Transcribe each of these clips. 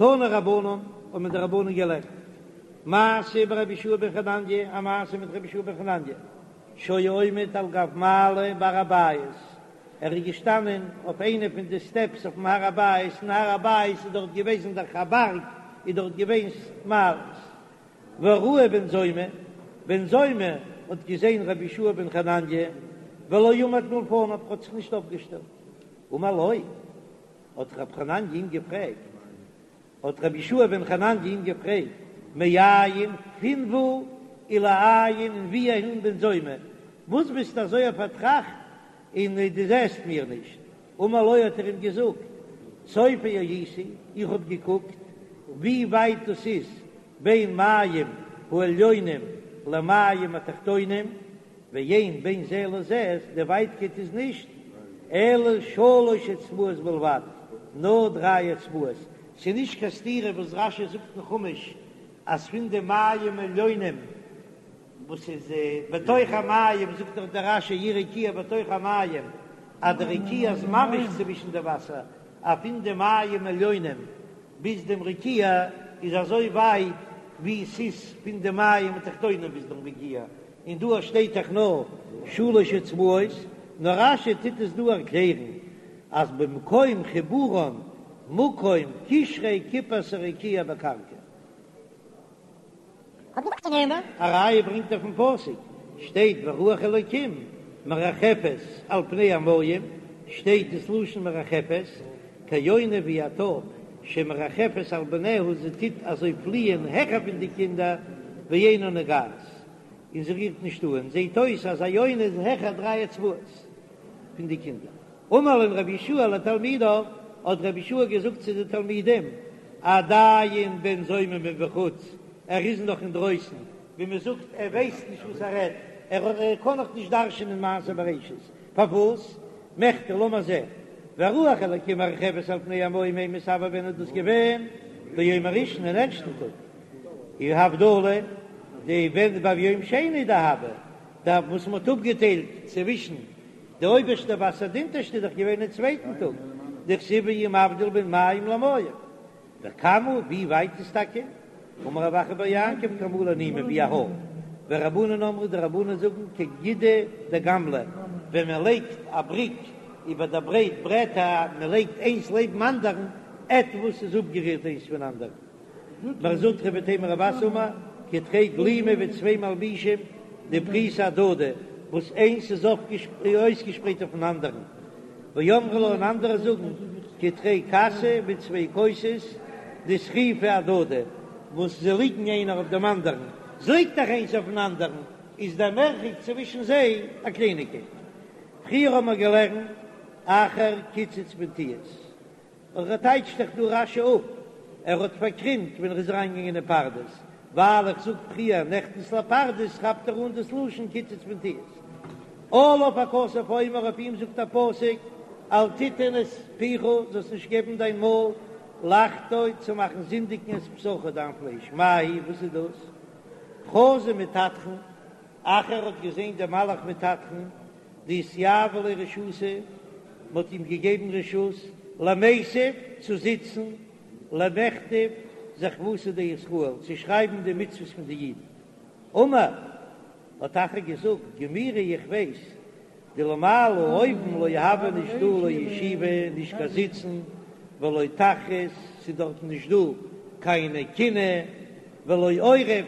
תנו רבנן, האבן די רבנן געלערנט, מעשה ברבי יהושע בן חנניה, א מעשה מיט רבי יהושע בן חנניה, שהיה עומד על גב מעלה בהר הבית, ער איז געשטאנען אויף איינע פון די סטעפס אויפן הר הבית, אין הר הבית איז דארט געוועזן דאך א בארג, איז דארט געווען מעלות. וראהו בן זומא, בן זומא האט געזען רבי יהושע בן חנניה, ולא עמד מלפניו, האט זיך נישט אויפגעשטעלט. אמר לו, האט רבי חנניה אים געפרעגט, האט רבי יהושע בן חנניה אים געפרעגט, מאין, פון וואו, ולאין, און וואו אהין בן זומא, וואס ביסטו אזוי פארטראכט און דו זעסט מיר נישט? אמר לו האט ער אים געזאגט, צופה הייתי, איך האב געקוקט ווי ווייט דאס איז בין מים העליונים למים התחתונים, ואין בין זה לזה, די ווייטקייט איז נישט אלא שלש אצבעות בלבד, נאר דריי אצבעות, ס'איז נישט קיין סתירה וואס רש"י זאגט אין חומש אז פון די מים עליונים וואס איז בתוך המים, זאגט דאך דער רש"י יהי רקיע בתוך המים, אז די רקיע איז ממש צווישן די וואסער, אז פון די מים עליונים ביז דעם רקיע איז אזוי ווייט ווי ס'איז פון די מים התחתונים ביז דעם רקיע, און דא שטייט דאך נאר שלש אצבעות, נאר רש"י טוט עס דא ערקלערן אז במקום חיבורן מקום קשרי כיפת הרקיע בקרקע. א ראיה ברענגט ער פון פסוק, שטייט ורוח אלוקים מרחפת על פני המים, שטייט דאס לשון מרחפת, כיונה ווי א טויב שמרחפת על בניה זי טוט אזוי פליען העכער פון די קינדער ואינה נוגעת און זי רירט נישט אן, זעט אויס אז א יונה איז העכער דריי אצבעות פון די קינדער. אמר להם רבי יהושע לתלמידיו, האט רבי יהושע געזאגט צו די תלמידים, עדיין בן זומא מבחוץ, ער איז נאך אינדרויסן, ווי מען זאגט ער ווייסט נישט וואס ער רעדט, ער קען נאך נישט דרש'ענען מעשה בראשית, פארוואס? מכדי לאמיר זען, ורוח אלקים מרחפת על פני המים אימת הוה ווען איז דאס געווען? ביום הראשון אין ערשטן טאג, און הבדלה די ווען ביום שני דהוה, די וואס מען האט אפגעטיילט צווישן די אויבערשטע וואסער די אונטערשטע איז דאך געווען אין צווייטן טאג, דכתיב ויהי מבדיל בין מים למים, וכמה ווי ווייט איז טאקע? אמר רב אחא בר יעקב כמלא נימא ווי א האר, ורבנן אמרי די רבנן זאגן כגידא דגמלא, ווען מען לייגט א בריק איבער די ברייט ברעטער מען לייגט איינס לעבן אנדערן עטוואס איז אפגערירט איינס פון אנדערן. מר זוטרא ואיתימא רב אסי אמר כתרי גלימי ווי צוויי מלבישים דפריסי אהדדי וואס איינס איז אויסגעשפרייט אויפן אנדערן, ואמרי לה און אנדערע זאגן כתרי כסי ווי צוויי כוסות דסחיפי אהדדי וואס זיי ליגן איינער אויף דעם אנדערן, ס'ליגט דאך איינס אויפן אנדערן איז דער מרחק צווישן זיי א קלייניגקייט. פריער האבן מיר געלערנט אחר קיצץ בנטיעות. און ער טייטשט דאך דא רש"י אפ, ער האט פארקרימט ווען ער איז אריינגעגאנגען אין פרדס, ווייל איך זאג פריער נכנס לפרדס כאפט ער אן דאס לשון קיצץ בנטיעות. עליו הכתוב אומר אויף אים זאגט א פסוק אל תתן את פיך זאלסט נישט געבן דיין מויל לחטוא צו מאכן זינדיגן את בשרך דיין פלייש, מאי היא וואס איז דאס? חזא מטטרון, אחר האט געזען דעם מלאך מטטרון דאתיהיבא ליה רשותא, מען האט אים געגעבן רשות למיתב צו זיצן, למכתב זכוותא דישראל, צו שרייבן די מצוות פון די אידן. אמר, האט אחר געזאגט, גמירי איך ווייס, דלמעלה אויבן לא הוה נישט דא לא ישיבה, נישט קיין זיצן, ולא תחרות, ס'איז דארטן נישט דא קיינע קנאה, ולא עורף,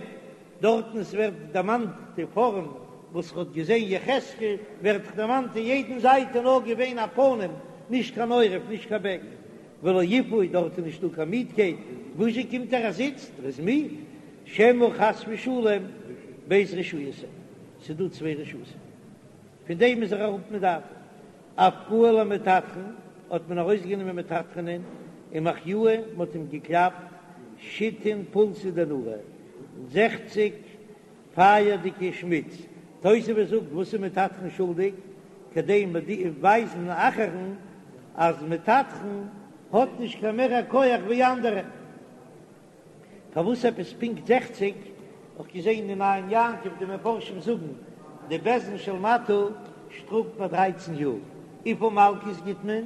דארטן עס ווערט דערמאנט די פארעם וואס ר'האט געזען יחזקאל, ווערט דערמאנט אין יעדן זייט איז נאר געווען א פנים, נישט קיין עורף, נישט קיין בעק, ולא עיפוי, דארט איז נישטא קיין מידקייט, וואזשע קומט ער ער זיצט, ער איז מיד, שמא חס ושלום ב' רשויות הן, ס'איז דא צוויי רשות'ן, פון דעם איז ער אראפ מדעתו. אפקוה למטטרון, האט מען ארויסגענומען מטטרונ'ען ומחיוה, מען האט אים געקלאפט שיתין פולסי דנורא, זעכציג פייערדיגע שמיץ, תוספות זאגט וואס איז מטטרון שולדיג, כדי ווייזן אחר'ן אז מטטרון האט נישט קיין מער א כח ווי אנדערע. פארוואס עפעס פונקט זעכציג? האב איך געזען אין עין יעקב די מפרשים זאגן די בית דין של מטה שטראפט ביי דרייצן יאר, וויפיל מלקות גיט מען?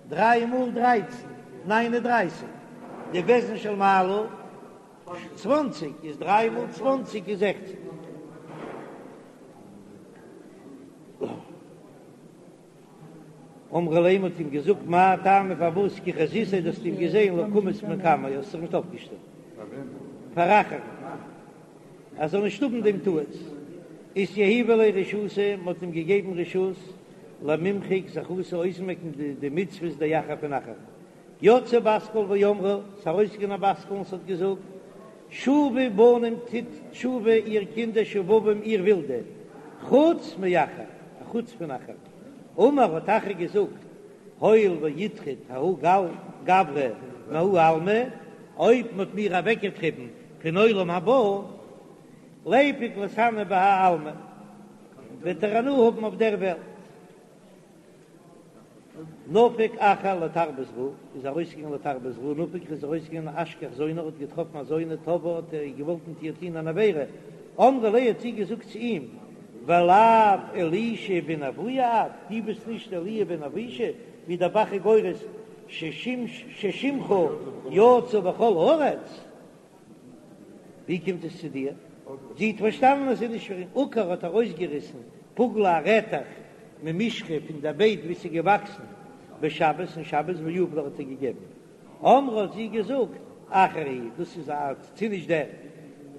דריי מאל דרייצן, ניין און דרייסיג. די בית דין של מעלה צוואנציג, איז דריי מאל צוואנציג איז זעכציג. אמרו ליה מ'האט אים געזאגט מאי טעמא פארוואס כי חזיתיה דו האסט אים געזען לא קמת מקמיה האסט זיך נישט אויפגעשטעלט פאר אחר ער זאל נישט האבן דעם טעות אתיהיבא ליה רשותא מ'האט אים געגעבן רשות למימחק זכותא אויסמעקן די מצוות דאחר פון אחר יצאה בת קול ואמרה, ס'איז ארויסגעגאנגען א בת קול און ס'האט געזאגט, שובו בנים טוט תשובה איר קינדער שובבים איר ווילדע, חוץ מאחר, א חוץ פון אחר. אמר האט אחר געזאגט, הואיל ואיטריד ההוא גברא מההוא עלמא, אויב מ'האט מיר אוועקגעטריבן פון עולם הבא, ליפוק ליתהני בהאי עלמא, וועט ער הנאה האבן אויף דער וועלט. נפק אחר לתרבות רעה, איז ארויסגעגאנגען לתרבות רעה, נפק איז ארויסגעגאנגען אשכח זונה, האט געטראפן א זונה, תבעה האט ער געוואלט מיט איר טון אן עבירה, אמרה ליה האט זי געזאגט צו אים, ולאו אלישע בן אבויה את, דו ביסט נישט אלי' בן אבישע, ווי דער ב"ח איז גורס ששמך יצא בכל הארץ. ווי קומט עס צו דיר? זי האט פארשטאנען אז ס'איז נישט פאר אים. עקר האט ארויסגעריסן פוגלא א רעטעך ממישחא פון דער בייט וואו ס'איז געוואקסן בשבת אין שבת ויהב לה האט ער געגעבן. אמרה האט זי געזאגט אחר הוא דאס איז א ס'איז נישט דער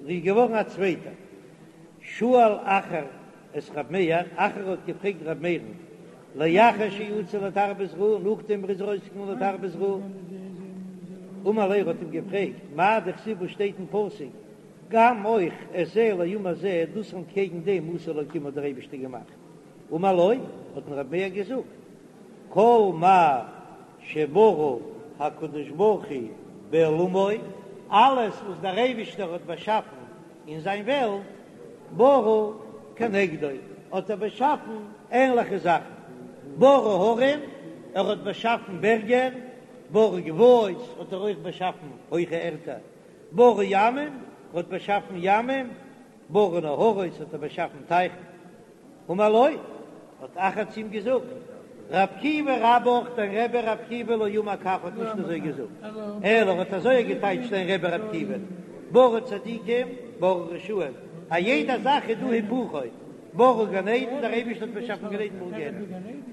איז געווארן א צווייטער. שאל אחר את ר' מאיר, אחר האט געפרעגט ר' מאיר'ן, לאחר שיצא לתרבות רעה, נאכדעם ער איז ארויסגעגאנגען לתרבות רעה, אמר ליה האט אים געפרעגט, מאי דכתיב וואס שטייט אין פסוק, גם אויך את זה לעומת זה, דאס אנטקעגן דעם עשה אלקים האט דער אייבערשטער געמאכט, אמר לו, האט אים ר' מאיר געזאגט, כל מה שברא הקדוש ברוך הוא בעולמו, אלעס וואס דער אייבערשטער האט באשאפן אין זיין וועלט, ברא כנגדו, האט ער באשאפן ענליכע זאכן, ברא הרים, ער האט באשאפן בערגער, ברא גבעות, האט ער אויך באשאפן הויכע ערטער, ברא ימים, ער האט באשאפן ימים, ברא נהרות, האט ער באשאפן טייכן. אמר לו, האט אחר צו אים געזאגט, ר' עקיבא רבך, דיין רבי ר' עקיבא לא אמר כך האט נישט אזוי געזאגט, אלא ער האט אזוי געטייטשט דיין רבי ר' עקיבא, ברא צדיקים, ברא רשעים, א יעדע זאך איז דא היפוכו, ברא גן עדן, דער אייבערשטער האט באשאפן גן עדן ברא גיהנום,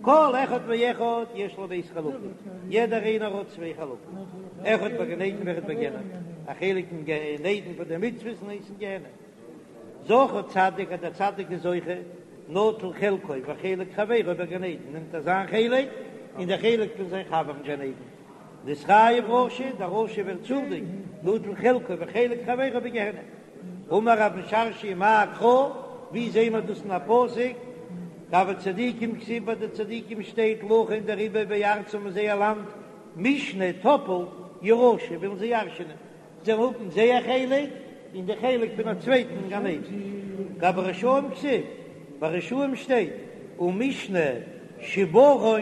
כל אחד ואחד יש לו ב' חלקים, יעדער איינער האט צוויי חלקים, אחד בגן עדן ואחד בגיהנום, א חלק אין גן עדן פאר די מצוות און איינס אין גיהנום. זכה צדיק אז דער צדיק איז זוכה, נוטל חלקו וחלק חברו בגן עדן, נעמט ער זיין חלק און דער חלק פון זיין חבר אין גן עדן. נתחייב רשע, דער רשע ווערט שולדיג, נוטל חלקו וחלק חברו בגיהנום. אמר רב משרשיא מאי קרא, ווי זעהן מיר דאס אין א פסוק? גבי צדיקים כתיב ביי די צדיקים שטייט לכן דעריבער בארצם אין זייער לאנד משנה טאפלט ירשו ווילן זיי ירש'נען. זיי האבן זייער חלק און די חלק פון א צווייטן אין גן עדן. גבי רשעים כתיב, ביי רשעים שטייט ומשנה שברון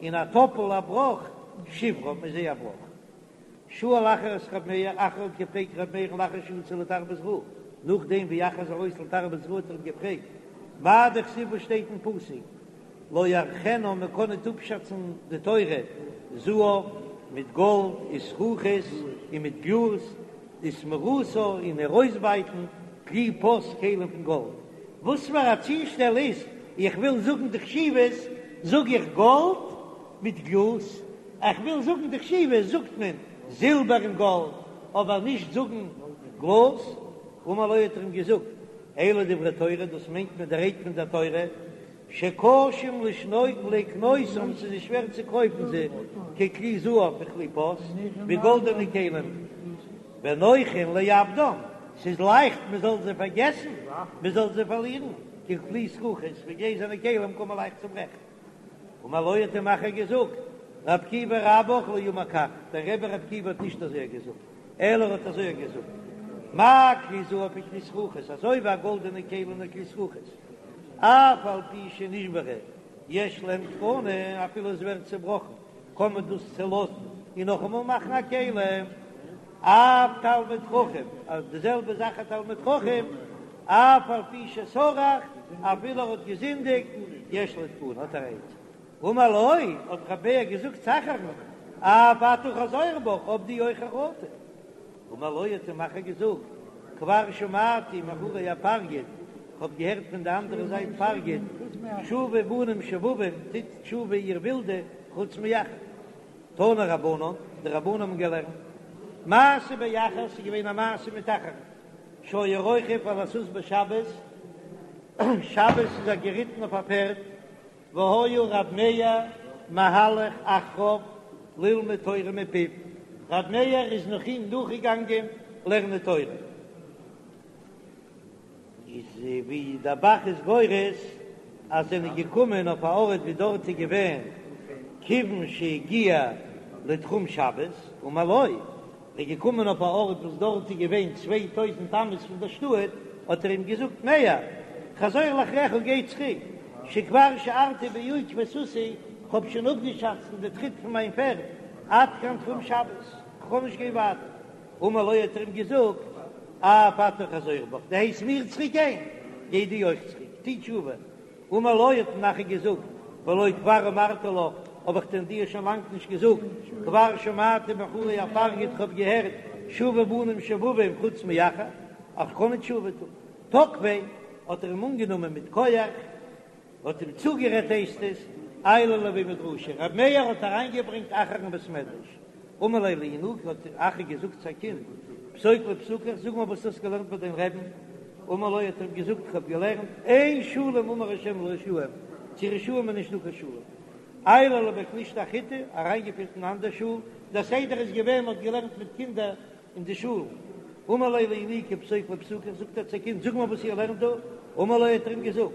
און א טאפל א בראך שברם איז זייער בראך. שאל אחר את ר' מאיר, אחר האט געפרעגט ר' מאיר'ן לאחר שיצא לתרבות רעה, נאכדעם ווי אחר איז ארויס לתרבות רעה האט ער אים געפרעגט מאי דכתיב וואס שטייט אין פסוק לא יערכנה מען קען ניט אפשאצן די תורה, זהב, מיט גאלד, וזכוכית, און מיט גלאז, ותמורתה, און איר אויסבייטן, כלי פז כלים פון גאלד. וואס פאר א צושטעל איז, איך וויל זאגן די חשיבות, זאג איך גאלד מיט גלאז, איך וויל זאגן די חשיבות, זאגט מען זילבער און גאלד, אבער נישט זאגן גלאז. אמר לו האט ער אים געזאגט, אלו דברי תורה, דאס מיינט מען די רייד פון דער תורה, שקשים לקנותם, ס'איז שווער צו קויפן זיי, ככלי זהב וכלי פז, ווי גאלדענע כלים, ונוחין לאבדם, ס'איז לייכט מען זאל זיי פארגעסן, מען זאל זיי פארלירן, ככלי זכוכית, ווי גלעזערנע כלים קען מען לייכט צוברעכן. אמר לו האט אים אחר געזאגט, ר' עקיבא רבך לא אמר כך, דער רבי ר' עקיבא האט נישט אזוי געזאגט, אלא ער האט אזוי געזאגט, מה כלי זהב וכלי זכוכית, אזוי ווי א גאלדענע כלי און א כלי זכוכית, אף על פי שנשברו יש להם תקנה, אפילו עס ווערט צעבראכן קען מען דאס צעלאזן און נאכאמאל מאכן א כלי, אף תלמיד חכם, אז די זעלבע זאך א תלמיד חכם, אף על פי שסרח, אפילו ער האט געזינדיגט, יש לו תקנה, האט ער א עצה. אמר לו, האט רבי מאיר געזאגט צו אחר'ן. אף אתה חזור בך, האב דו אויך חרטה. אמר לו האט אים אחר געזאגט, כבר שמעתי מאחורי הפרגוד, כ'האב געהערט פון די אנדערע זייט פרגוד, שובו בנים שובבים, טוט תשובה איר ווילדע, חוץ מאחר. תנו רבנן, די רבנן האבן געלערנט, מעשה באחר, ס'איז געווען א מעשה מיט אחר, שהיה רוכב על הסוס בשבת, שבת איז ער געריטן אויף א פערד, והיה ר' מאיר מהלך אחריו ללמוד תורה מפיו, ר' מאיר איז נאך אים נאכגעגאנגען לערנען תורה. איז ווי דער ב"ח איז גורס אז זענען געקומען אויף א ארט ווי דארט איז געווען כיוון שהגיע לתחום שבת אמר לו, איז געקומען אויף א ארט וואס דארט איז געווען 2000 אמות פון דער שטאט, האט ער אים געזאגט מאיר, חזור לאחריך גיי צוריק, שכבר שיערתי בעקבי סוסי, כ'האב שוין אפגעשאצט אין די טריט פון מיין פערד, עד כאן תחום שבת, כ'קען נישט גיין ווייטער. אמר לו האט ער אים געזאגט, אף אתה חזור בך, דו הייסט מיר צוריק גיין, גיי דו אויך צוריק, טו תשובה. אמר לו האט אים אחר געזאגט, והלא כבר אמרתי לך, האב איך דען דיר שוין לאנג נישט געזאגט, כבר שמעתי מאחורי הפרגוד, כ'האב געהערט שובו בנים שובבים חוץ מאחר, אז כ'קען נישט תשובה טון. תקפיה, האט ער אים אנגענומען מיט כח, האט אים צוגערעדט הייסט עס, עייליה לבי מדרשא, רבי מאיר האט אריינגעברענגט אחר אין בית מדרש, אמר ליה לינוקא האט אחר געזאגט צו א קינד, פסוק לי פסוקיך, זאג מיר וואס דו האסט געלערנט ביי דיין רעבן, אמר לו האט ער אים געזאגט איך האב געלערנט, אין שלום אמר השם לרשעים, צו רשעים איז נישט דא קיין שלום. עייליה לבי כנישתא אחריתי, אריינגעפירט אין אנדער שול, דער סדר איז געווען מען האט געלערנט מיט קינדער אין די שולן. אמר ליה לינוקא פסוק לי פסוקיך, זאגט ער צו קינד, זאג מיר וואס איר לערנט דא. אמר לו האט ער אים געזאגט,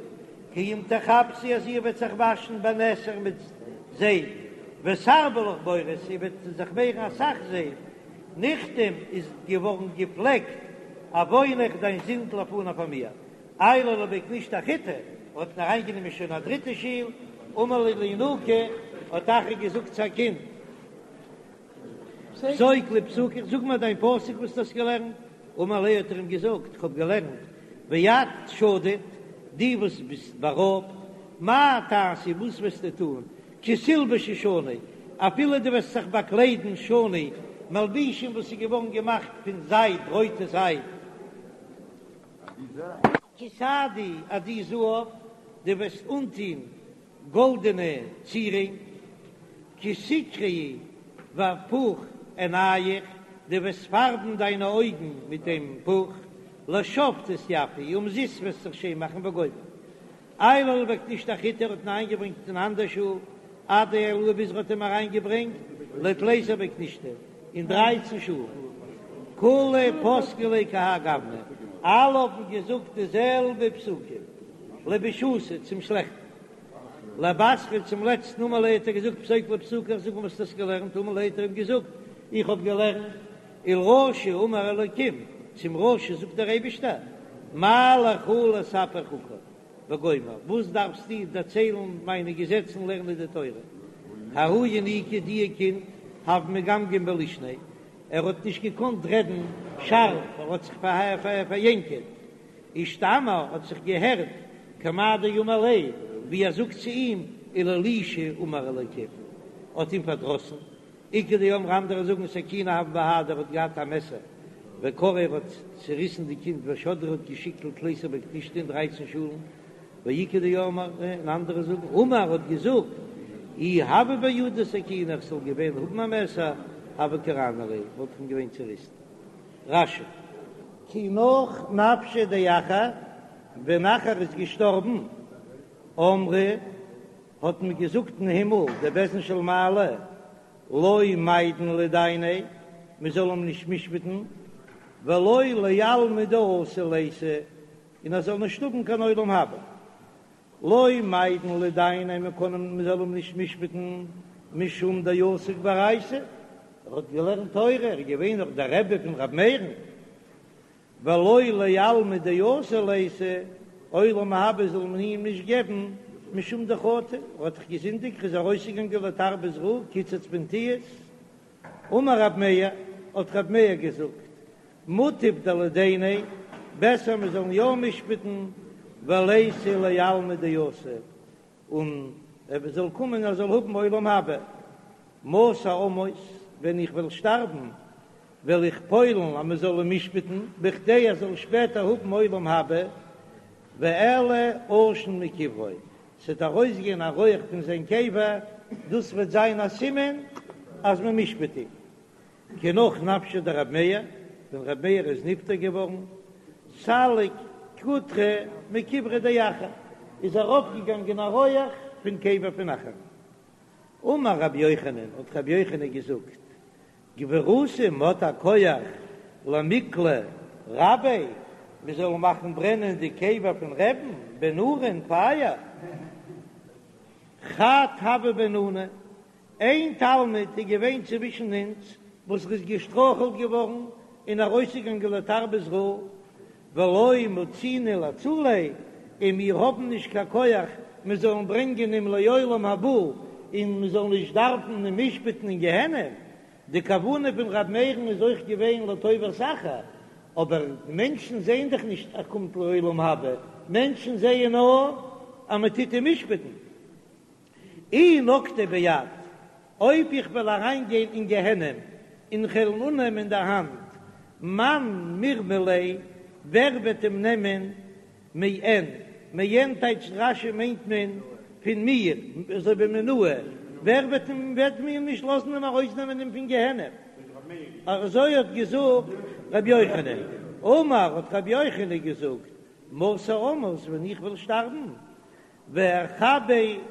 כי אם תכבסי אז איר וועט זיך וואשן בנתר מיט זייף, ותרבי לך בורית, איר וועט זיך מערן אסאך זייף, נכתם איז געווארן געפלעקט עוונך דיין זינד לפני פאר מיר. עייליה לבי כנישתא אחריתי, האט אים אריינגענומען שוין א דריטע שול, אמר ליה לינוקא, האט אחר געזאגט צו א קינד, פסוק לי פסוקיך, זאג מיר דיין פסוק וואס דו האסט געלערנט. אמר ליה האט ער אים געזאגט, איך האב געלערנט, ואת שדוד, דו וואס ביסט בארויבט, מה תעשי, וואס וועסטו טון, כי תלבשי שני, אפילו דו וועסט זיך באקליידן שני, מלבישים וואס איז געווארן געמאכט פון זייד, רויטע זייד. כי תעדי עדי זהב, דו וועסט אנטון גאלדענע צירונג, כי תקרעי בפוך עיניך, דו וועסט פארבן דיינע אויגן מיט דעם פוך, לשוא תתיפי, אומזיסט וועסט זיך שיין מאכן וגומר. עייליה לבי כנישתא אחריתי האט אים אריינגעברענגט אין אנדער שול, עד דעייליה ביז ער האט אים אריינגעברענגט לתליסר בי כנישתא אין דרייצן שולן. כולהו פסקי ליה כי האי גוונא, אלע האבן געזאגט די זעלבע פסוקים. לבישותא, צום שלעכטן. לבתרא, צום לעצטן, אמר ליה האט ער געזאגט פסוק לי פסוקיך, זאג מיר וואס דו האסט געלערנט, אמר ליה האט ער אים געזאגט, איך האב געלערנט, ולרשע אמר אלקים, צום רשע זאגט דער אייבישטער, מה לך לספר חוקי, וגומר, וואס דארפסטו דערציילן מיינע געזעצן לערנען די תורה, ההוא ינוקא דיע קינד הוה מגמגם בלישניה, ער האט נישט געקאנט רעדן שארף, ער האט זיך פאריענקעט, אישתמע האט זיך געהערט כמאן דאמר ליה, ווי ער זאגט צו אים, ולאלישע אמר אלקים, האט אים פארדראסן, איכא דאמרי אנדערע זאגן סכינא הוה בהדיה ער האט געהאט א מעסער, וקרעיה ער האט צוריסן די קינד ושדריה האט געשיקט לתליסר בי כנישתא אין דרייצן שולן, ואיכא דאמרי און אנדערע זאגן אמר האט געזאגט אי הוה בידי סכינא איך זאל געווען האבן א מעסער הוה קרענא ליה וואלט איך אים געווען צוריסן. רש"י. כי נח נפשיה דאחר, ווען אחר איז געשטארבן, אמרי, האט מען געזאגט אין הימל, דער בית דין של מעלה, לא מיידן לדייניה, מען זאל אים נישט משפט'ן, ולא לעלמא דאתי ליתי, און ער זאל נישט האבן קיין עולם הבא. לא מיידן לדייניה מען קען אים מען זאל אים נישט משפט'ן משום דעסק באורייתא, ער האט געלערנט תורה, ער איז געווען נאך דער רבי פון רבי מאיר'ן, ולא לעלמא דאתי ליתי, עולם הבא זאל מען אים נישט געבן משום דחטא, ער האט דאך געזינדיגט, ער איז ארויסגעגאנגען לתרבות רעה, קיצץ בנטיעות, אמר רב מאיר, האט רב מאיר געזאגט, מוטב דלידייניה, בעסער מען זאל יא משפט'ן, וליתי לעלמא דאתי, און ער זאל קומען ער זאל האבן עולם הבא. מתי אמות, ווען איך וועל שטארבן, וועל איך פועל'ן אז מען זאל אים משפט'ן, בכדי ער זאל שפעטער האבן עולם הבא, ואעלה עשן מקברו, ס'וועט ארויסגיין א רויעך פון זיין קבר, דאס וועט זיין א סימן אז מען משפט אים. כי נח נפשיה דרבי מאיר, ווען רבי מאיר איז נפטר געווארן, סליק קוטרא מקבריה דאחר, איז ארויפגעגאנגען א רויעך פון קבר פון אחר. אמר רבי יוחנן, האט רבי יוחנן געזאגט, גבורתא, מ'האט א כח למיקלא רביה, מ'זאל מאכן ברענען די קבר פון רבי'ן בנורא אין פייער. חד הוה ביננא, איין תלמיד איז געווען צווישן אונז וואס איז געשטרויכלט געווארן און ארויסגעגאנגען לתרבות רעה, ולא מצינן לאצוליה, און מיר האבן נישט קיין כח מיר זאלן ברענגען אים לעולם הבא, און מיר זאלן נישט דארפן אים משפט'ן אין גיהנום. די כוונה פון ר' מאיר'ן איז אויך געווען לטובת אחר, אבער מענטשן זעען דאך נישט ער קומט לעולם הבא, מענטשן זעען נאר אז מען טוט אים משפט'ן. אי נקטיה ביד, אויב איך וועל אריינגיין אין גיהנום און כ'וועל אים אננעמען אין דער האנט, מאן מרמי ליה, ווער וועט אים נעמען מעין, מעין טייטשט רש"י מיינט מען פון מיר, אזוי ווי מינאי, ווער וועט אים וועט מיר נישט לאזן אים ארויסנעמען אים פון גיהנום, אזוי האט געזאגט רבי יוחנן, אמר האט רבי יוחנן געזאגט, מתי אמות ווען איך וועל שטארבן, ואכבה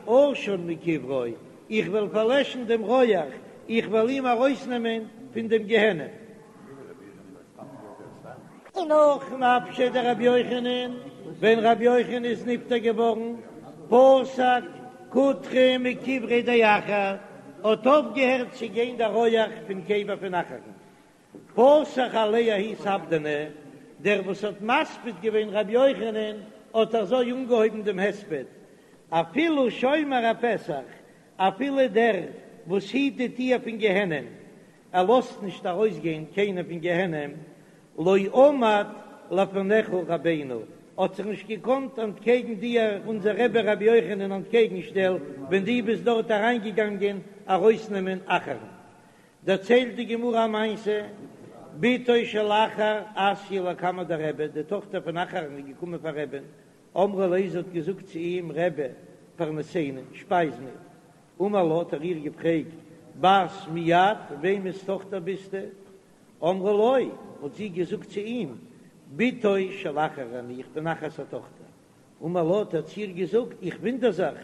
עשן מקברו, איך וועל פארלעשן דעם רויעך, איך וועל אים ארויסנעמען פון דעם גיהנום. כי נח נפשיה דרבי יוחנן, ווען רבי יוחנן איז נפטר געווארן, פסק קוטרא מקבריה דאחר, האט אויפגעהערט צו גיין דער רויעך פון קבר פון אחר'ן, פתח עליה ההוא ספדנא, דער וואס האט מספיד געווען רבי יוחנן האט אזוי אנגעהויבן דעם הספד, אפילו שומר הפתח, אפילו דער וואס היט די טיר פון גיהנום, ער לאזט נישט ארויסגיין קיינער פון גיהנום, לא עמד לפניך רבינו, האט זיך נישט געקאנט אנטקעגן דיר אונזער רבי רבי יוחנן אנטקעגן שטעלן ווען דו ביסט דארט אריינגעגאנגען ארויסנעמען אחר'ן. דערציילט די גמרא א מעשה, בתו של אחר אתיא לקמיה דרבי, די טאכטער פון אחר'ן איז געקומען פאר רבי'ן, אמרה ליה, זי האט געזאגט צו אים, רבי, פרנסני, שפייז מיר. אמר לה, האט ער איר געפרעגט, בת מי את, וועמענס טאכטער ביסטו? אמרה לו, האט זי געזאגט צו אים, בתו של אחר אני, איך בין אחר'ס א טאכטער. אמר לה, האט ער צו איר געזאגט, איך וואונדער זיך,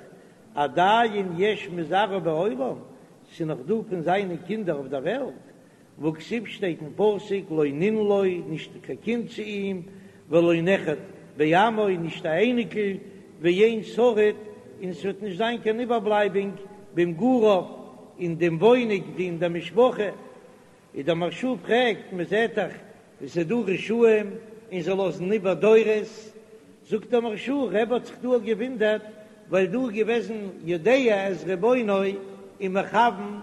עדיין יש מזרעו בעולם, ס'איז נאך דא פון זיינע קינדער אויף דער וועלט, והכתיב שטייט אין פסוק לא נין לו, נישט קיין קינד צו אים, ולא נכד בעמו, נישט א אייניקל, ואין שריד, און ס'וועט נישט זיין קיין איבערבלייבונג במגוריו, אין דעם וואוינונג אין דער משפחה. איז דער מהרש"א פרעגט, מען זעט דאך ווי ס'איז דא רשעים און זיי לאזן איבער דורות, זאגט דער מהרש"א, רבי האט זיך דא געוואונדערט ווייל דא איז געוועזן יודע את רבונו און מכוון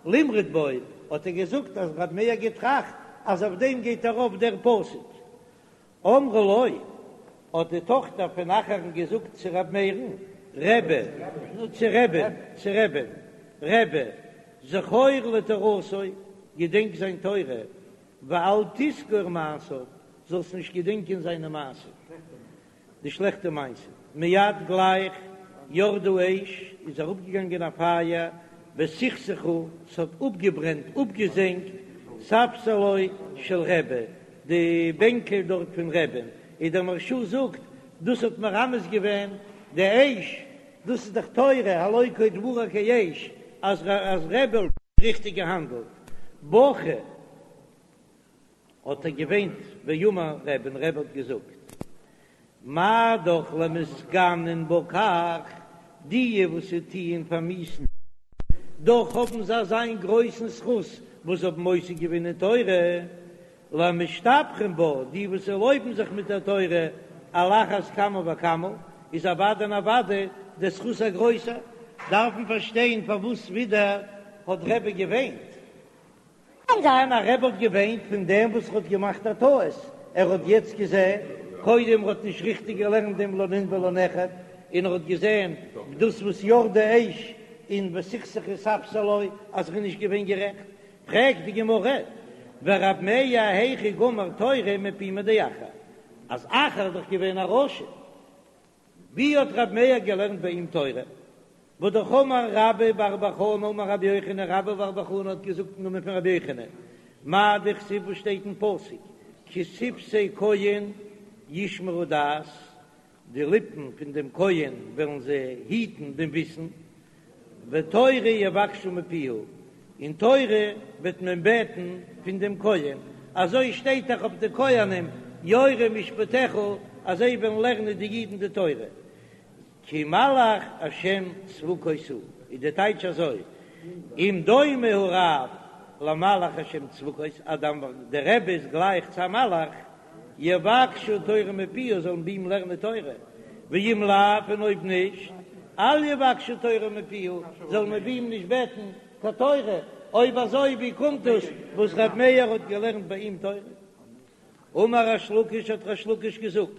למרוד בו, האט ער געזאגט אז רבי מאיר האט געטראכט אז אויף דעם גייט ארויף דער פסוק. אמרה לו, האט די טאכטער פון אחר'ן געזאגט צו ר' מאיר'ן, רבי, צו רבי'ן, צו רבי'ן, רבי, זכור לתורתו, געדענק זיין תורה, ואל תזכור מעשיו, זאלסט נישט געדענקען זיינע מעשים. די שלעכטע מעשים, מיד גלייך ירדה אש, איז אראפגעגאנגען א פייער, וסכסכה, ס'האט אפגעברענט, אפגעזענגט, ספסלו של רבי, די בענקל דארט פון רבי'ן, איז דער מהרש"א זאגט, דאס האט מרמז געווען די אש, דאס איז דאך תורה, הלא כה דברי כאש, אז רבי האט ריכטיג געהאנדלט, בכה. האט ער געוויינט ואמר רבי און רבי האט געזאגט מה דאך למתגנין בה כך, די וואס זיי טוען פארמיאוסן דאך האבן זיי אזא גרויסן זכות וואס האבן עוסק געווען אין תורה, למשתבחין בה, די וואס לויבן זיך מיט דער תורה, על אחת כמה וכמה, איז אוודאי און אוודאי דער זכות א גרויסער, דארף מען פארשטיין פארוואס ווידער האט רבי געוויינט. קען זיין אז רבי האט געוויינט פון דעם וואס ער האט געמאכט א טעות, ער האט יעצט געזען, קודם ער האט נישט ריכטיג געלערנט דעם לא נין ולא נכד, און ער האט געזען דאס וואס ירדה אש. און וסכסכו ספסלו אז ער איז נישט געווען גערעכט, פרעגט די גמרא, ורב מאיר היכי גמר תורה מפומיה דאחר, אז אחר איז דאך געווען א רשע, ווי האט רב מאיר געלערנט ביי אים תורה? והא אמר רבה בר בר חנה אמר רבי יוחנן, רבה בר בר חנה האט געזאגט אין נאמען פון רבי יוחנן, מאי דכתיב וואס שטייט אין פסוק, כי שפתי כהן ישמרו דעת, די ליפן פון דעם כהן וועלן זיי היטן דעם וויסן, ותורה יבקשו מפיהו, און תורה וועט מען בעטן פון דעם כהן, אזוי שטייט דאך אויף די כהנים, יורו משפטיך, אז זיי וועלן לערנען די אידן די תורה, כי מלאך השם צבקות הוא, איז די טייטש אזוי, אם דומה הרב למלאך השם צבקות, אז דער רבי איז גלייך צו א מלאך, יבקשו תורה מפיהו זאלן ביי אים לערנען תורה, ואם לאו און אויב נישט, אל יבקשו תורה מפיהו זאל מען ביי אים נישט בעטן קיין תורה, אויב אזוי ווי קומט דאס וואס ר' מאיר האט געלערנט ביי אים תורה? אמר ריש לקיש האט ריש לקיש געזאגט,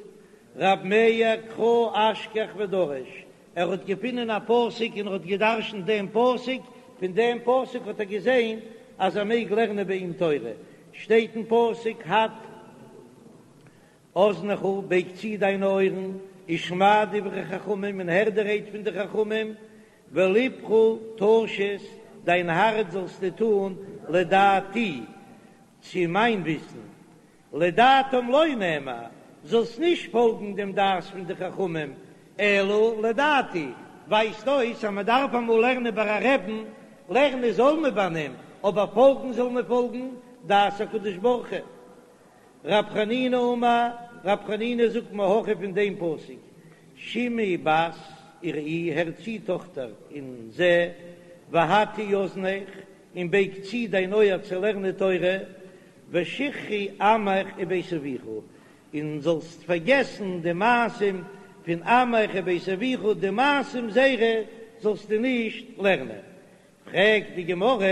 ר' מאיר קרא אשכח ודרש, ער האט געפונען א פסוק און ער האט געדרשנט דעם פסוק, פון דעם פסוק האט ער געזען אז ער מעג לערנען ביי אים תורה, שטייט אין פסוק הט אזנך בייג צו דיינע אויערן, ושמע דברי חכמים און הער די רייד פון די חכמים, ולבך תשית דיין הארץ זאלסטו טון לדעתי צו מיין וויסן, לדעתם לא נאמר, זאלסט נישט פאלגן דעם דעת פון די חכמים, אלא לדעתי, ווייזט אויס אז מען דארף אמאל לערנען ביי א רעבן, לערנען זאל מען ביי אים, אבער פאלגן זאל מען פאלגן דעת הקדוש ברוך הוא. רב חנינא אמר, רב חנינא זאגט מהכא פון דעם פסוק, שמעי בת וראי, הער צו טאכטער און זע, והטי אזנך, און בייג צו דיין אויער צו לערנען תורה, ושכחי עמך ובית אביך, און זאלסט פארגעסן די מעשים פון עמך ובית אביך, די מעשים זייערע זאלסטו נישט לערנען. פרעגט די גמרא,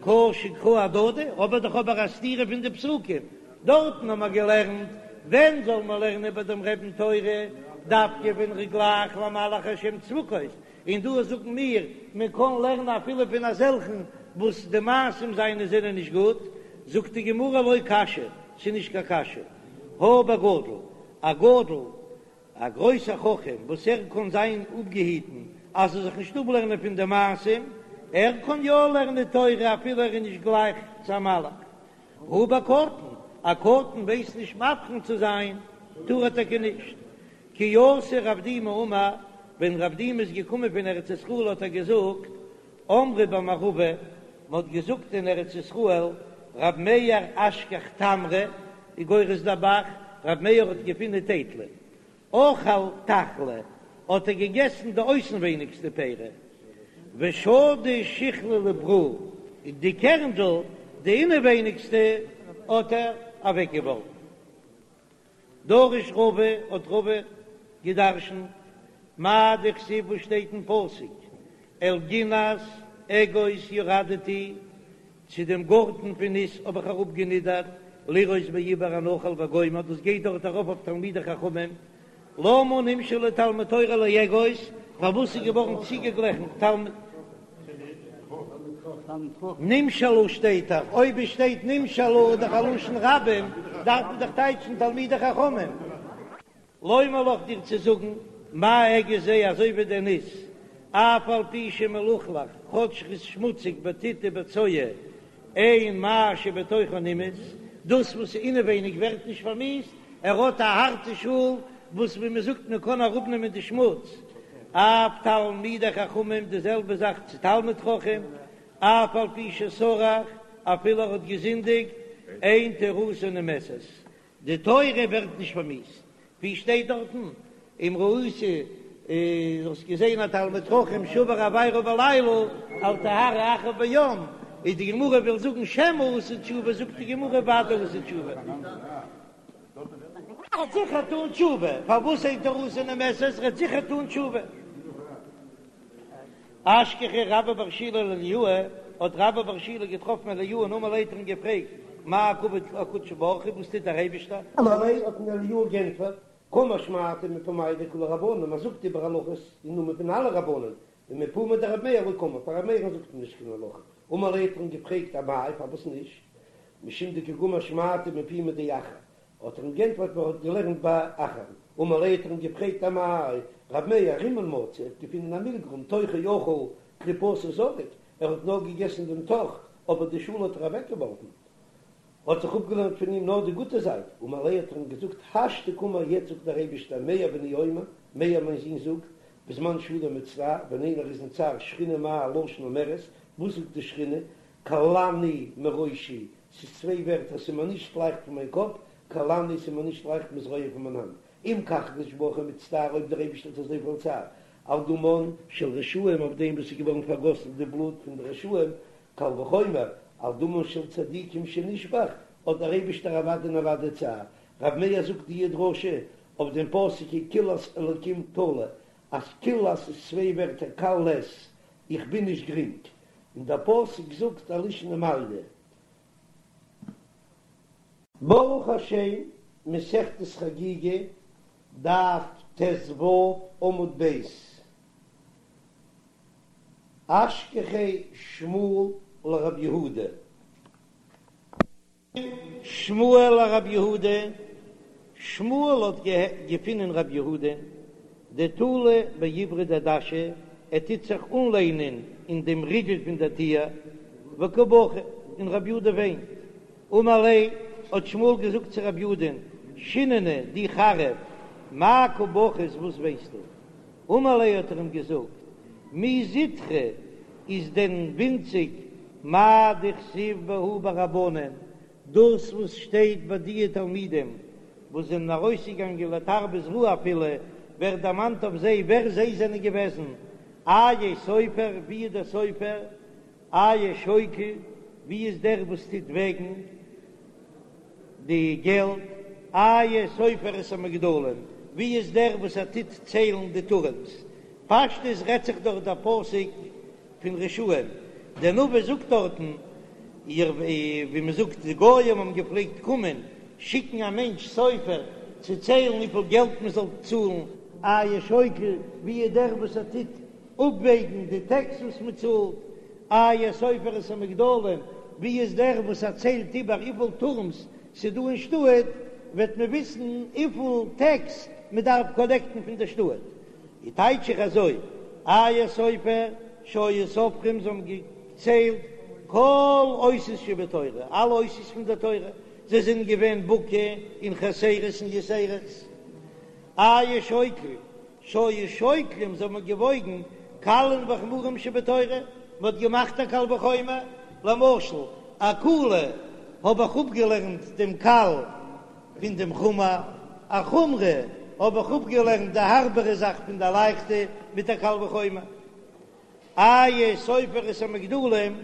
קשו קראי אהדדי, האב איך דאך אבער א סתירה פון די פסוקים, דארטן האבן מיר געלערנט, ווען זאל מען לערנען ביי דעם רעבן תורה, דווקא ווען ער איז גלייך למלאך השם צבקות, און דא זאגן מיר, מען קען לערנען אפילו פון אזעלכן וואס די מעשים זיינע זענען נישט גוט, זאגט די גמרא לא קשיא, ס'איז נישט קיין קשיא, הא בגדול, א גדול, א גרויסער חכם וואס ער קען זיין אפגעהיטן אז ער זאל זיך נישט אפלערנען פון די מעשים, ער קען יא לערנען תורה אפילו ער איז נישט גלייך צו א מלאך. הא בקטן, א קטן ווייסט נישט מבחין צו זיין, טאר ער טאקע נישט. כי אתא רב דימי אמר, ווען רב דימי איז געקומען פון ארץ ישראל האט ער געזאגט, אמרי במערבא, מען האט געזאגט אין ארץ ישראל, רב מאיר אשכח תמרי, איז גורס דער ב"ח, רב מאיר האט געפונען טייטלען, אכל תחלי, האט ער געגעסן די אויסנווייניגסטע פירה, ושדי שיכלא לברא, און די קערנדל, די אינעווייניגסטע, האט ער אוועקגעווארפן. דרש רבא, האט רבא געדרשנט, מאי דכתיב וואס שטייט אין פסוק, אל גנת אגוז ירדתי, צו דעם גארטן פון ניס האב איך אראפגענידערט, לראות בעיבור הנחל וגומר, דאס גייט דארט ארויף אויף תלמידי חכמים, למה נמשלו תלמוד תורה לאגוז, פארוואס איז געווארן צוגעגליכן תלמוד. נמשלו שטייט דאך, אויב עס שטייט נמשלו איז דאך א לשון רבים, דארף מען דאך טייטשן תלמידי חכמים. לומר לך דיר צו זאגן, מה אגוז זה אזוי ווי דער ניס, אף על פי שמלוכלך, כאטש ס'איז שמוציג בטיט ובצואה, אין מה שבתוכו נמאס, דאס וואס איז אינעווייניג ווערט נישט פארמיאוסט, ער האט א הארטע שאל וואס ווי מען זאגט מען קען אראפנעמען די שמוץ, אף תלמידי חכמים די זעלבע זאך צו תלמיד חכם, אף על פי שסרח אפילו ער האט געזינדיגט, אין תורתו נמאסת, די תורה ווערט נישט פארמיאוסט, ווי שטייט דארטן, אם ראית האסט געזען א תלמיד חכם שעבר עבירה בלילה אל תהרהר אחריו ביום, איז די גמרא וויל זאגן שמא עשה תשובה, זאגט די גמרא ודאי עשה תשובה. ער וועט זיכער טון תשובה, פארוואס אין תורתו נמאסת, ער וועט זיכער טון תשובה. אשכחיה רבה בר שילא לאליהו, האט רבה בר שילא געטראפן אליהו און אמר ליה האט ער אים געפרעגט, מאי קא עביד קודשא בריך הוא, וואס טוט דער אייבישטער? אמר ליה האט אים אליהו גענטפערט, קאמר שמעתא מפומייהו דכולהו רבנן, מען זאגט איבער הלכות אין נאמען פון אלע רבנן, ומפומיה דרבי מאיר לא קאמר, פאר רבי מאיר'ן זאגט מען נישט קיין הלכה. אמר ליה האט ער אים געפרעגט אמאי פארוואס נישט? משום דקא גמר שמעתא מפומיה דאחר, האט ער אים גענטפערט ווייל ער האט געלערנט ביי אחר. אמר ליה האט ער אים געפרעגט אמאי רבי מאיר רימון מצא, ער האט געפונען א מילגרום תוכו אכל קליפתו זרק, ער האט נאר געגעסן דעם תוך אבער די שאל האט ער אוועקגעווארפן, האט זיך אפגעלערנט פון אים נאר די גוטע זייט, אמר ליה האט ער אים געזאגט השתא קאמר יעצט זאגט דער אייבישטער מאיר בני אומר, מאיר מיין זון זאגט, בזמן שאדם מצטער, ווען איינער איז אין צער שכינה מה לשון אומרת, וואס זאגט די שכינה, קלני מראשי, ס'איז צוויי ווערטער, ס'איז מיר נישט לייכט פון מיין קאפ, קלני ס'איז מיר נישט לייכט מזרועי פון מיין האנט, אם כך הקדוש ברוך הוא מצטער אויב דער אייבישטער האט אזויפיל צער על דמן של רשעים אויף דעם וואס איז געווארן פארגאסן די בלוט פון די רשעים, קל וחומר על דמן של צדיקים שנשפך, האט דער אייבישטער אוודאי און אוודאי צער. רב מאיר זאגט די דרשה אויף דעם פסוק כי קללת אלקים תלה, אז קללת איז צוויי ווערטער קל לית, איך בין נישט גרינג, און דער פסוק זאגט א לישנא מעליא. ברוך השם, מסכת חגיגה, דף ט"ו עמוד ב', אשכחיה שמואל לרב יהודה. שמואל לרב יהודה, שמואל האט געפינען רב יהודה דתלי בעיברא דדשא, ער טוט זיך אנלענען אין דעם ריגל פון דער טיר, וקא בכי, און רב יהודה וויינט. אמר ליה, האט שמואל געזאגט צו רב יהודה'ן, שיננא, דו חריף, מאי קא בכית, וואס וויינסטו? אמר ליה האט ער אים געזאגט, מי זוטרא איז דען ווינציג מאי דכתיב בהו ברבנן, דאס וואס שטייט ביי דיע תלמידים וואס זענען ארויסגעגאנגען לתרבות רעה אפילו ווערט דערמאנט אויף זיי ווער זיי זענען געוועזן, איה סופר, ווי איז דער סופר? איה שוקל, ווי איז דער וואס טוט וועגן די געלט? איה סופר את המגדלים, ווי איז דער וואס ער טוט ציילן די טורעמס? פשטות רעדט זיך דאך דער פסוק פון רשעים, דער נביא זאגט דארטן, איר ווי מען זאגט די גויים האבן געפלעגט קומען שיקן א מענטש סופר צו ציילן וויפיל געלט מען זאל צאלן, איה שוקל, ווי איז דער וואס ער טוט אפוועגן די טעקס וואס מען צאלט, איה סופר את המגדלים, ווי איז דער וואס ער ציילט איבער וויפיל טורמס ס'איז דא אין שטאט, וועט מען וויסן וויפיל טעקס מען דארף קאלעקטן פון די שטאט. איז טייטש איך אזוי, איה סופר שהיו סופרים זיי האבן געציילט כל אותיות שבתורה, אלע אותיות פון דער תורה, זיי זענען געווען בקי אין חסרות און יתירות. איה שוקל שהיו שוקלים זיי האבן געוואויגן קלים וחמורים שבתורה, מען האט געמאכט א קל וחומר, למשל א קולא האב איך אפגעלערנט דעם קל פון דעם חמור, א חומרא האב איך אפגעלערנט די הארבערע זאך פון די לייכטע מיט א קל וחומר. איה סופר את המגדלים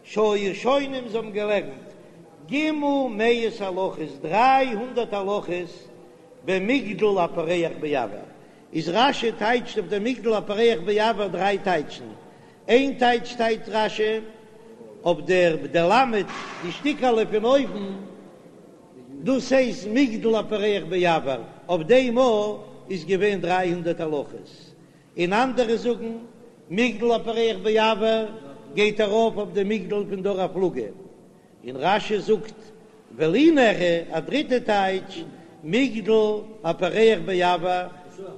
שהיו שונים זיי האבן געלערנט ג' מאות הלכות דריי הונדערט הלכות במגדל הפורח באויר איז רש"י טייטשט אויף דעם מגדל הפורח באויר דריי טייטשן איין טייטש טייטשט רש"י אויף דער די למד די שטיקעלע פון אויבן דאס הייסט מגדל הפורח באויר אויף דעם א איז געווען דריי הונדערט הלכות און אנדערע זאגן מגדל הפורח באויר גייט ארויף אויף די מגדל פון דור הפלגה, און רש"י זאגט ולי נראה א דריטע טייטש, מגדל הפורח באויר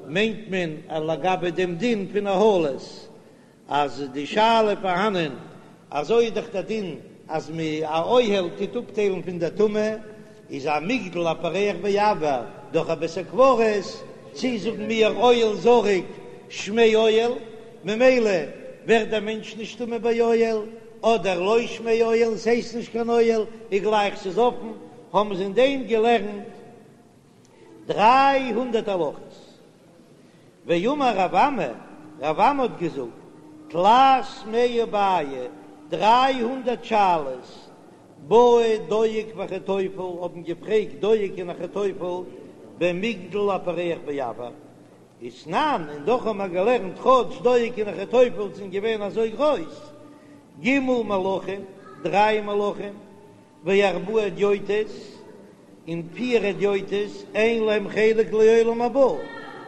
מיינט מען לגבי דעם דין פון אהלות, אז די שאלה פארהאנען, אזוי איז דאך דער דין אז מ א אוהל טוט אפטיילן פון דער טומאה, איז א מגדל הפורח באויר דורך א בית הקברות, צי זאגן מיר אוהל זרוק שמיה אוהל, ממילא ווערט דער מענטש נישט טמא ביי אוהל, אדער לא שמיה אוהל, ס'הייסט נישט קיין אוהל, איז גלייך ס'איז אפן, האבן זיי אין דעם געלערנט דריי הונדערט הלכות. ואמר רב אמי, רב אמי האט געזאגט, תלת מאה בעיי, דריי הונדערט שאלות, בעו דואג ואחיתופל האבן געפרעגט דואג און אחיתופל במגדל הפורח באויר, ותנן, און דאך האבן מיר געלערנט כאטש דואג און אחיתופל זענען געווען אזוי גרויס, ג' מלכים, דריי מלכים, וארבעה הדיוטות, און פיר הדיוטות, אין להם חלק לעולם הבא,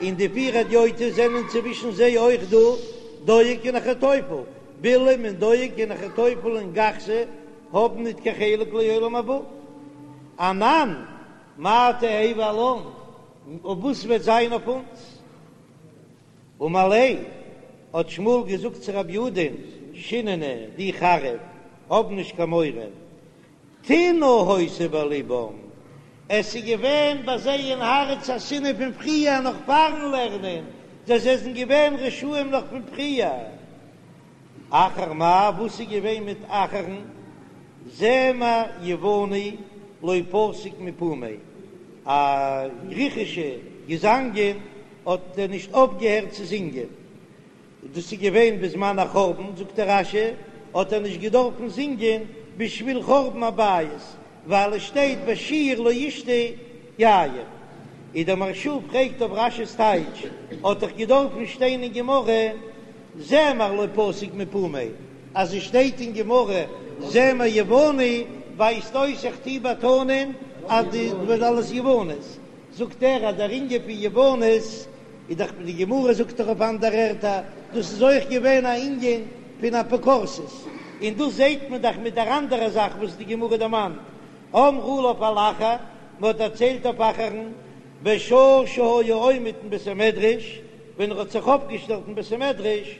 און די פיר הדיוטות זענען צווישן זיי אויך דא. דואג און אחיתופל, בלעם און דואג און אחיתופל און גחזי האבן ניט קיין חלק לעולם הבא. אנן מאי תהוי עלן, און וואס וועט זיין אויף אונז? אמר ליה, האט שמואל געזאגט צו רב יהודה'ן, שיננא, דו חריף, האב נישט קיין מורא, טינא היתה בלבם, עס איז געווען ביי זיי אין הארץ א שנאה פון פריער נאך פארן לערנען, זיי זענען געווען רשעים נאך פון פריער. אחר מאי, וואס איז געווען מיט אחר'ן? זמר יווני לא פסיק מפומיה, א גריכישע געזאנגען האט ער נישט אויפגעהערט צו זינגען, דאס איז געווען בזמן החורבן, זאגט דער רש"י, האט ער נישט געדארפן זינגען בשביל חורבן הבית, ווייל עס שטייט בשיר לא ישתו יין. און דער מהרש"א פרעגט אויף רש"י'ס טייטש, האט דאך געדארפן שטיין אין גמרא זמר לא פסיק מפומיה, אז עס שטייט אין גמרא זמר יווני ווייזט אויס איך טוה באטאנען אז די ווען אלעס יוונית, זאגט ער אז דער ענין פון יוונית איז דאך די גמרא זאגט דאך אויף אנדערע ערטער דאס איז אויך געווען א ענין פון אפיקורסות, און דאס זעט מען דאך מיט דער אנדערע זאך וואס די גמרא דערמאנט, אמרו עליו על אחר, מען האט דערציילט אויף אחר'ן, בשעה שהיה עומד אין בית המדרש, ווען ער האט זיך אויפגעשטעלט אין בית המדרש,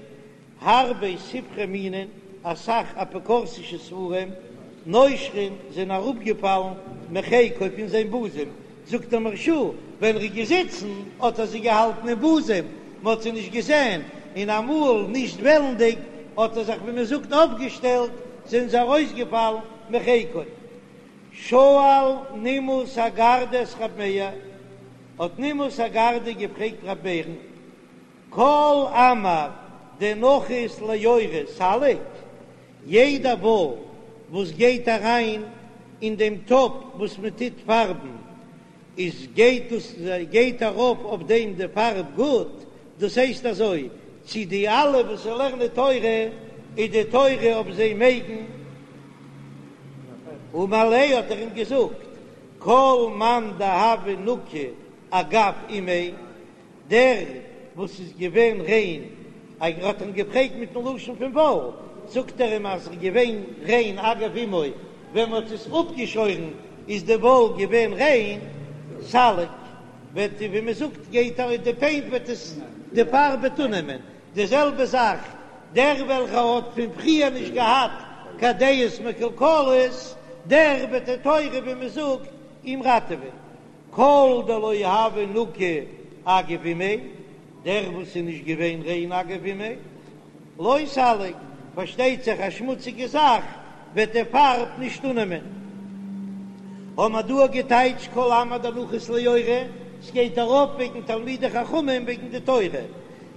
הרבה ספרי מינין, אסאך אפיקורסישע ספרים, נושרין, זענען אראפגעפאלן מחיקו פון זיין בוזעם, זאגט דער מהרש"א, ווען ער איז געזיצן האט ער זיי געהאלטן אין בוזעם, מען האט זיי נישט געזען, און אמאל נישט וועלנדיג האט ער זיך ווי מען זאגט אויפגעשטעלט, זענען זיי ארויסגעפאלן מחיקו. שאל נימוס הגרדי את רב מאיר, האט נימוס הגרדי געפרעגט רב מאיר'ן, כל עמר דנחית ליורה סליק, יעדע וואל וואס גייט אריין אין דעם טאפ וואס מען טוט פארבן, איז גייט דאס גייט ארויף אויף דעם די פארב גוט, דאס הייסט אזוי צו די אלע וואס לערנען תורה איז די תורה אויף זיי מגין. אמר ליה האט ער אים געזאגט, כל מאן דהוה נקי אגב אימיה, דער וואס איז געווען ריין, ער האט אים געפרעגט מיטן לשון פון וואל, זאגט ער אים אז ער איז געווען ריין אגב אמו, ווען מען האט עס אפגעשוירן איז די וואל געווען ריין, סליק, וועט ווי מען זאגט גייט ארויס די פעינט וועט עס די פארב וועט אננעמען, די זעלבע זאך דער וועלכער האט פון פריער נישט געהאט קיין דעות מקולקלות, דער וועט די תורה ווי מען זאגט אים ראטעווען. כל דלא הוה נקי אגב אימיה, דער וואס איז נישט געווען ריין אגב אימיה, לא סליק, פארשטייט זיך א שמוציגע זאך וועט די פארב נישט אננעמען. האבן מיר דא געטייטשט כל עמר דנחית ליורה, ס'גייט ארויף וועגן תלמידי חכמים וועגן די תורה,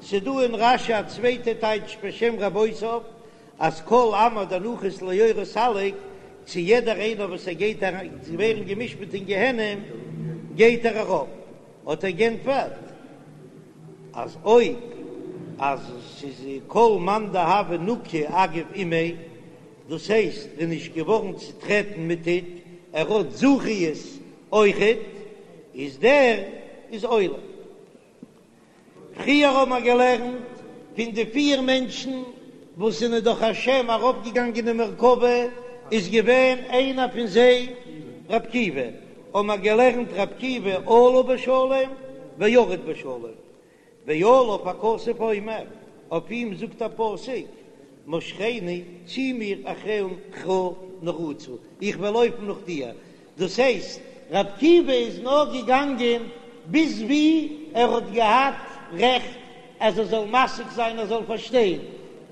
ס'דא אין רש"י א צווייטע טייטש בשם רבותיו, אז כל עמר דנחית ליורה סליק, צו יעדער איינער וואס ער גייט אריין צו ווערן גע'משפט אין גיהנום גייט ער ארויף, האט ער גענטפערט אז אויב אז ס'איז כל מאן דהוה נקי אגב אימיה, דאס הייסט ער איז נישט געווארן צוטרעטן מיט טיט, ער האט זכיות אויכעט, איז דער איז עולה. פריער האבן מיר געלערנט פון די פיר מענטשן וואס זענען דורך השם ארויפגעגאנגען אין מרכבה, איז געווען איינער פון זיי ר' עקיבא, האבן מיר געלערנט ר' עקיבא עלה בשלום וירד בשלום, ועליו הכתוב אומר, אויף אים זאגט א פסוק, משכני, צי מיר אחריך נרוצה, איך וועל לויפן נאך דיר, דאס הייסט, ר' עקיבא איז נאר געגאנגען ביז ווי ער האט געהאט רעכט אז ער זאל משיג זיין, ער זאל פארשטיין,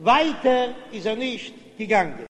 ווייטער איז ער נישט געגאנגען.